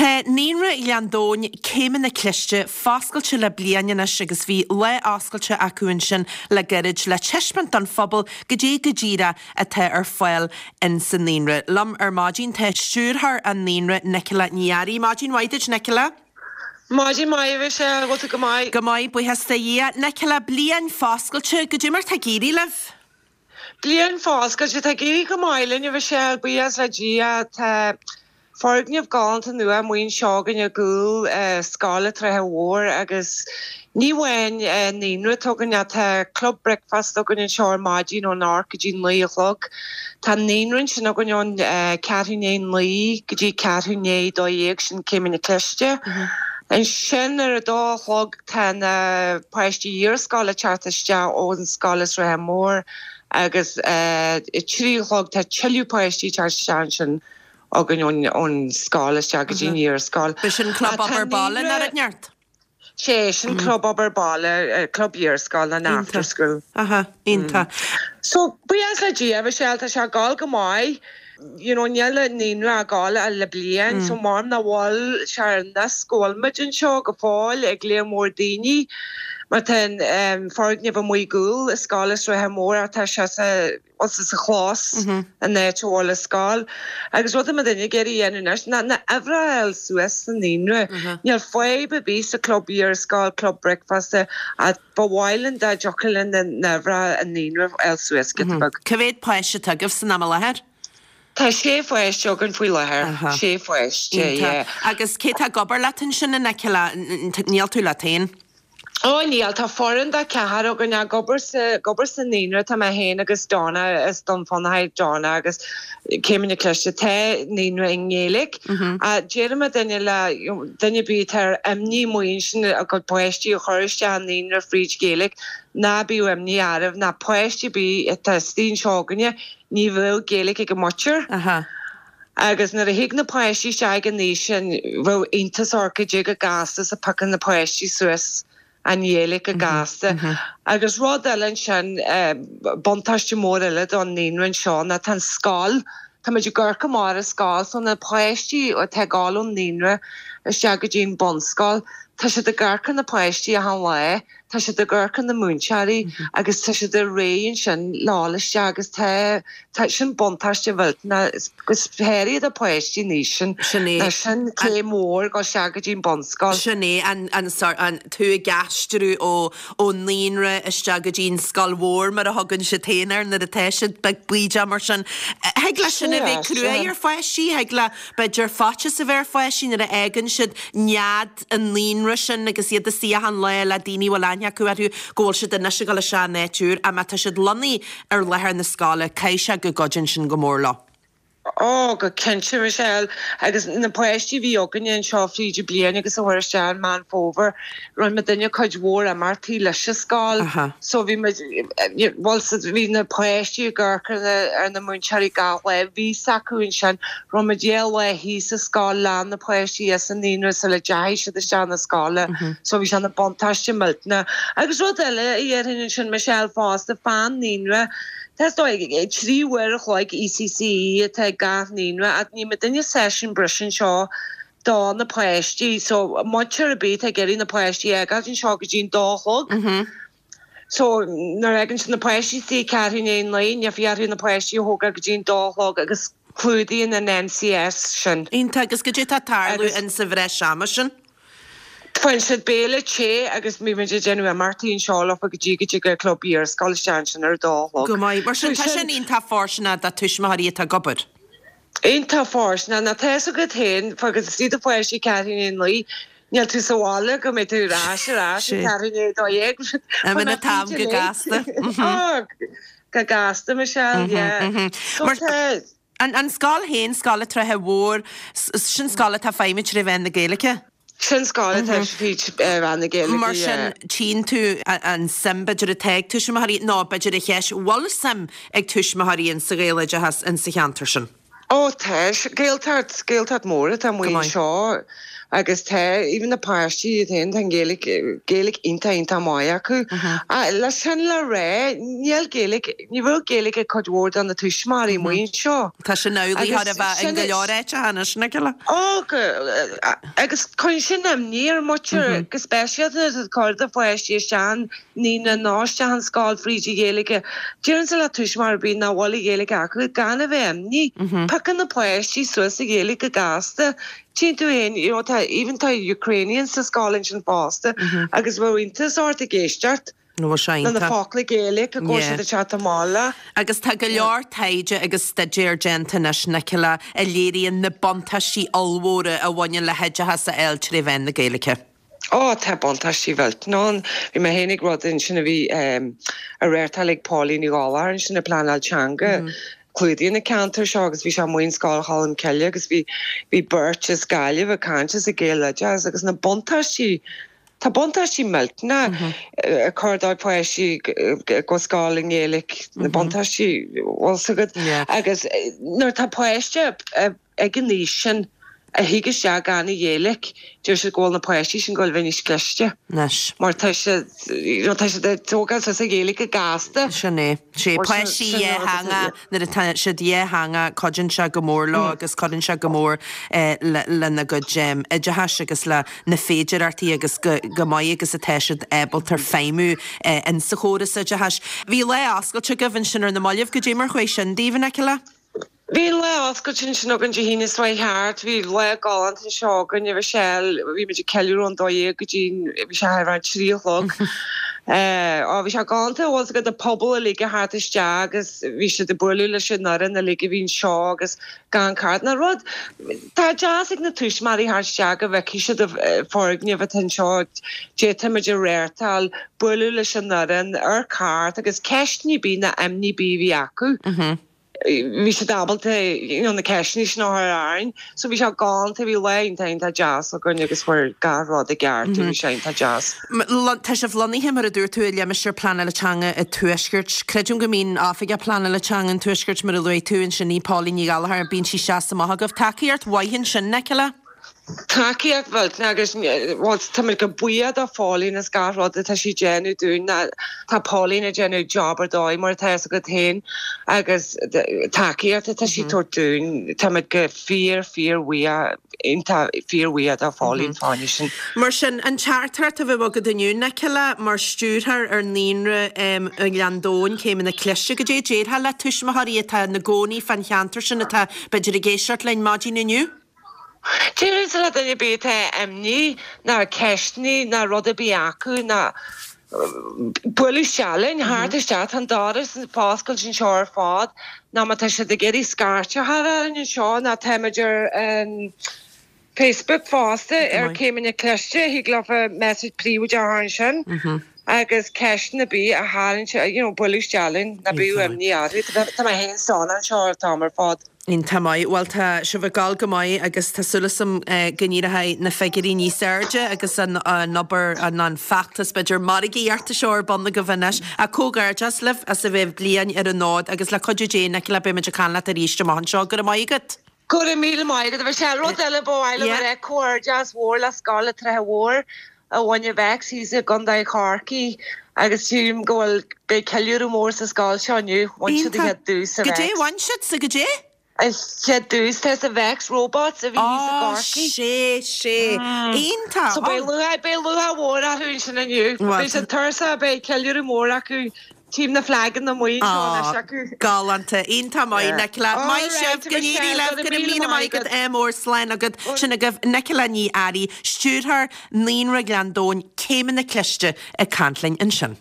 Tá Naíonra Ghleann Domhain, Céimeanna Cliste, foscailte le bliain anois agus bhí lá oscailte acu ansin le gairid le taispeáint don phobal goidé go díreach atá ar fáil in sa naíonra. Liom ar maidin tá stiúrthóir an naíonra, Nicola Ní Fhearraigh. Maidin mhaith duit, Nicola. Maidin mhaith, a Mhichelle, an bhfuil tú go maith? Go maith, buíochas do Dhia. Nicola, bliain foscailte, goidé mar tá ag éirí libh? Bliain foscailte, tá ag éirí go maith linn, a Mhichelle, buíochas le Dia. Tá foirgneamh galánta nua amuigh anseo againn i gcúl Scoil an tSratha Mhóir agus ní amháin naíonra atá againn ach tá club bricfeasta againn anseo ar maidin ón 8 go dtí 9 a chlog. Tá naíonra ansin againn ón ceathrú i ndiaidh a 9 go dtí ceathrú i ndiaidh 12, sin Céimeanna Cliste. Ansin ar a dó a chlog Tá na páistí iarscoile ag teacht isteach ón scoil an Sratha Mór agus a 3 a chlog tá tuilleadh páistí ag teacht isteach ansin againn ón scoil isteach go dtí an iarscoil. B'shin club obair baile nó rud inteacht? Sé, sin club obair baile, club iarscoile an after school. Aha, iontach. So, buíochas le Dia, Michelle, tá sé ag gabháil go maith. You know, níl an naíonra ag gabháil ach le bliain so mar nach bhfuil sé ar nós go bhfuil muid anseo go fóill ag léar mór daoine mar tá an foirgneamh amuigh i gcúl an scoil an Sratha Mór ach tá sé sa bhuel sa sa chlós an áit a bhfuil an scoil. Agus rud atá muid ag iarraidh a dhéanamh anois ná na uimhreacha a fháil suas sa naíonra. Níl fadhb ar bith sa club iarscoil, club bricfeasta ach ba mhaith linn dá dtiocfadh linn na n-uimhreacha i naíonra a fháil suas giota beag. Cá mhéad páiste atá agaibh san am i láthair? Tá sé pháiste againn faoi láthair. Sé pháiste, yeah. Agus cé tá ag obair leat ansin, a Nicola? Níl tú leat féin? Ó níl, tá foireann de cheathrar againn ag obair sa, ag obair sa naíonra, tá mé féin agus Donna, as Dún Fionnachaidh, Donna agus Céimeanna Cliste, tá naíonra i nGaeilge. Deireann muidinne le duine ar bith atá ar imní amuigh ansin a gcuid páistí a chur isteach i naíonra fríd Ghaeilge, ná bíodh imní oraibh, ná páiste ar bith atá istigh anseo againne, ní bheadh Gaeilge ag a muintir. Agus nuair a thig na páistí isteach ag an aois sin, bheadh iontas orthu goidé chomh gasta is a phiocann na páistí suas an Ghaeilge go gasta. Agus rud eile ansin, buntáiste mór eile don naíonra anseo ná tá an scoil, tá muid ag amharc amach ar an scoil, so na páistí atá ag gabháil ón naíonra isteach go dtí an bunscoil, tá siad ag amharc ar na páistí achan lá, tá siad ag amharc ar na múinteoirí agus tá siad réidh ansin le dhul isteach agus tá, tá, sin buntáiste mhillteanach go háirithe do pháistí an aois sin, Sin é. ná sin céim mhór dul isteach go dtí an bunscoil. Sin é, an, an sort, an, tú ag aistriú ó, ón naíonra isteach go dtí an scoil mhór mar a thugann siad féin air nuair atá siad beag baoideach mar sin. Thig le sin a bheith cruaidh ar pháistí, thig le, b'fhéidir, faitíos a bheith ar pháistí nuair a fhágann siad nead an naíonra sin agus iad istigh achan lá le daoine a bhfuil aithne acu orthu go bhfuil siad anois ag dul isteach in áit úr ach má tá siad lonnaithe ar láthair na scoile caithfidh sé go gcuidíonn sin go mór leo. Ó, go cinnte, Michelle. Agus na páistí a bhí againne anseo fríd an bliain agus a chuaigh isteach i Meán Fómhair, rinne muidinne cuid mhór imeachtaí leis an scoil. So bhí muid, bhuel, bhí na páistí ag amharc ar na, ar na múinteoirí gach lá, bhí 's acu ansin. Rinne muid dhá lá thíos sa scoil le na páistí as an naíonra sula dteachaigh siad isteach na scoile. So bhí sé ina buntáiste millteanach. Agus rud eile a dhéarfainn ansin, Michelle, fosta, fán naíonra, tá is dóigh, 3 uair a chloig ECCE atá ag gach naíonra ach ní muidinne seisiún breise anseo do na páistí. So muintir ar bith atá ag iarraidh na páistí a fhágáilt anseo go dtí an dó a chlog. So, nuair a fhágann siad na páistí istigh ceathrú i ndiaidh a naoi, níl fiacha orthu na páistí a thógáil go dtí an dó a chlog agus clúdaíonn an NCS sin. Iontach, agus goidé atá ag tarlú in sa bhreis ama sin? Faigheann siad béile te agus bíonn muid ag déanamh imeachtaí anseo leofa go dtí go dtig an club iarscoile isteach ansin ar a dó a chlog. Go maith. Mar sin, tá sin iontach fóirsteanach do tuismitheoirí atá ag obair. Iontach fóirsteanach. Ná tá fhios agat féin, fágann tú do pháistí ceathrú i ndiaidh a naoi, níl tú sa bhaile go mbeidh tú ar ais ar ais ag ceathrú i ndiaidh a 12. Imíonn an t-am go gasta. Ó, go gasta, Michelle, yeah. So tá. An scoil féin, Scoil an tSratha Mhóir, sin scoil atá ag feidhmiú tré mheán na Gaeilge? Sin scoil atá fríd mheán na Gaeilge, Mar sin, tchíonn tú an suim, b'fhéidir, atá ag tuismitheoirí, nó b'fhéidir an cheist, bhfuil suim ag tuismitheoirí in sa Ghaeloideachas in sa cheantar sin? Ó tá, Gaeltacht, Gaeltacht mór atá amuigh anseo agus tá, even na páistí iad féin, tá an Ghaeilge, Gaeilge iontach, iontach maith acu. Ach leis sin le rá, níl Gaeilge, ní bhfuil Gaeilge ag cuid mhór de na tuismitheoirí amuigh anseo. Tá sin amhlaidh chóir a bheith in go leor áiteacha anois, Nicola. Ó, agus cuireann sin imní ar muintir, go speisialta nuair atá ag cur do pháistí isteach an naíonra nó isteach an scoil fríd an Ghaeilge. Déarfainnse le tuismitheoir ar bith nach bhfuil an Ghaeilge acu gan a bheith imní. Piocann na páistí suas an Ghaeilge go gasta. Tchíonn tú féin, you know, tá, even tá Ukrainians sa scoil ansin fosta agus bheadh iontas ort ag éisteacht le na focla Gaeilge go bhfuil siad ag teacht amach leo. Agus tá go leor taighde agus staidéar déanta anois, Nicola, a léiríonn na buntáistí ollmhóra a bhaineann le hoideachas a fháil tré mheán na Gaeilge. Ó, tá buntáistí mhillteanach ann. Bhí mé féin ag rud ansin a bhí á reáchtáil ag Pauline Ní Ghallchóir ansin ag pleanáil teanga. Clúdaíonn na ceantair seo agus bhí sé amuigh in Scoil Cholm Cille agus bhí bhí beirt as Gaillimh ag caint as an Gaeloideachas agus na buntáistí tá buntáistí millteanach ag cur do pháistí go scoil i nGaeilge na buntáistí bhfuil 's agat agus nuair atá páiste ag an aois sin a thig isteach gan an Ghaeilge, deir siad go bhfuil na páistí sin ag goil a bheith níos cliste. Anois. Mar tá siad, you know, tá siad ag tógáil suas an Ghaeilge go gasta. Sin é. Sé páistí dhátheangach, nuair atá siad dhátheangach, cuidíonn sé go mór leo agus cuireann sé go mór lena gcuid oideachais agus le na féidireachtaí agus go maith agus atá siad ábalta feidhmiú in sa chóras oideachais. Bhí lá oscailte agaibh ansin ar na mallaibh, goidé mar chuaigh sin daoibh, Nicola? Bhí an lá oscailte ansin againn Dé hAoine seo chuaigh thart. Bhí lá galánta anseo againn, a Mhichelle. Bhí muid ag ceiliúradh ón 12 go dtí bhí sé thar an 3 a chlog. Á, bhí sé galánta, bhfuil 's agat, an pobal uilig a theacht isteach agus bhí siad ag bualadh leis an fhoireann uilig a bhí anseo agus gan card ná rud. Tá deas ag na tuismitheoirí theacht isteach go bhfeicfidh siad an foirgneamh atá anseo, goidé tá muid a reáchtáil, bualadh leis an fhoireann, ar cairt agus ceisteanna ar bith ná imní ar bith a bhí acu. bhí siad ábalta you know na ceisteanna sin a chur orainn. So bhí sé galánta, bhí lá iontach iontach deas againn agus fuair gach rud i gceart mm bhí sé iontach deas. Tá sibh lonnaithe mar a dúirt tú i limistéar pleanála teanga an Tuaiscirt. Creidim go mbíonn Oifigeach Pleanála Teanga an Tuaiscirt mar a luaigh tú ansin í Pauline Ní Ghallchóir, bíonn sí isteach is amach agaibh. Tacaíocht mhaith ansin, Nicola? Tacaíocht mhillteanach agus bhuel táimid go buíoch do Phauline as gach rud atá sí ag déanamh dúinn. Tá Pauline ag déanamh job ar dóigh mar atá fhios agat féin agus tacaíocht atá sí ag tabhairt dúinn táimid go fíor fíor bhuíoch iontach fíor bhuíoch do Phauline fá choinne sin. Mar sin, an teachtaireacht a bheadh agat inniu, Nicola, mar stiúrthóir ar Naíonra i nGleann Domhain, Céimeanna Cliste, goidé a déarfá le tuismitheoirí atá ina gcónaí fán cheantar sin atá b'fhéidir ag éisteacht linn maidin inniu? Déarfainnse le duine ar bith atá imní ná ceisteanna ná rud ar bith acu ná bualadh isteach linn, theacht isteach, tá an doras foscailte anseo ar fad, ná má tá siad ag iarraidh scairt a chur orainn anseo ná táimid ar an Facebook fosta ar Céimeanna Cliste, thig leofa message príobháideach a chur ansin agus ceisteanna ar bith a tharraingt, you know, bualadh isteach linn, ná bíodh imní orthu, tá mé féin sona anseo an t-am ar fad. Iontach maith. Bhuel tá sibh ag gabháil go maith agus tá súil agam go n-éireoidh na figiúirí níos airde agus an obair, an feachtas b'fhéidir margaíochta seo ar bun agaibh anois. Ach comhghairdeas libh as a bheith bliain ar an fhód agus le cuidiú Dé, Nicola, beidh muid ag caint leat arís amach anseo. Go raibh maith agat. Go raibh míle maith agat, a Mhichelle. Rud eile ba mhaith liom a rá, comhghairdeas mhór le Scoil an tSratha Mhóir. a bhain an Vex thíos i gContae Chorcaí agus sílim go bhfuil, beidh ceiliúradh mór sa scoil seo inniu, bhain siad an chéad duais sa Vex. Goidé bhain siad sa goidé? An chéad duais tá sa Vex Robots a bhí thíos i Á, gCorcaigh. sé, sé. Iontach! So beidh lúcháir, beidh lúcháir mhór orthu ansin inniu. Beidh siad tuirseach, beidh ceiliúradh mór acu. Tchím na flaganna amuigh anseo anois acu. Galánta. Iontach maith, Nicola. Maith sibh. Go n-éirí libh. Go raibh míle maith agat. Ádh mór. Slán agat. Sin agaibh Nicola Ní Fhearraigh, Stiúrthóir Naíonra Ghleann Domhain, Céimeanna Cliste, ag caint linn ansin.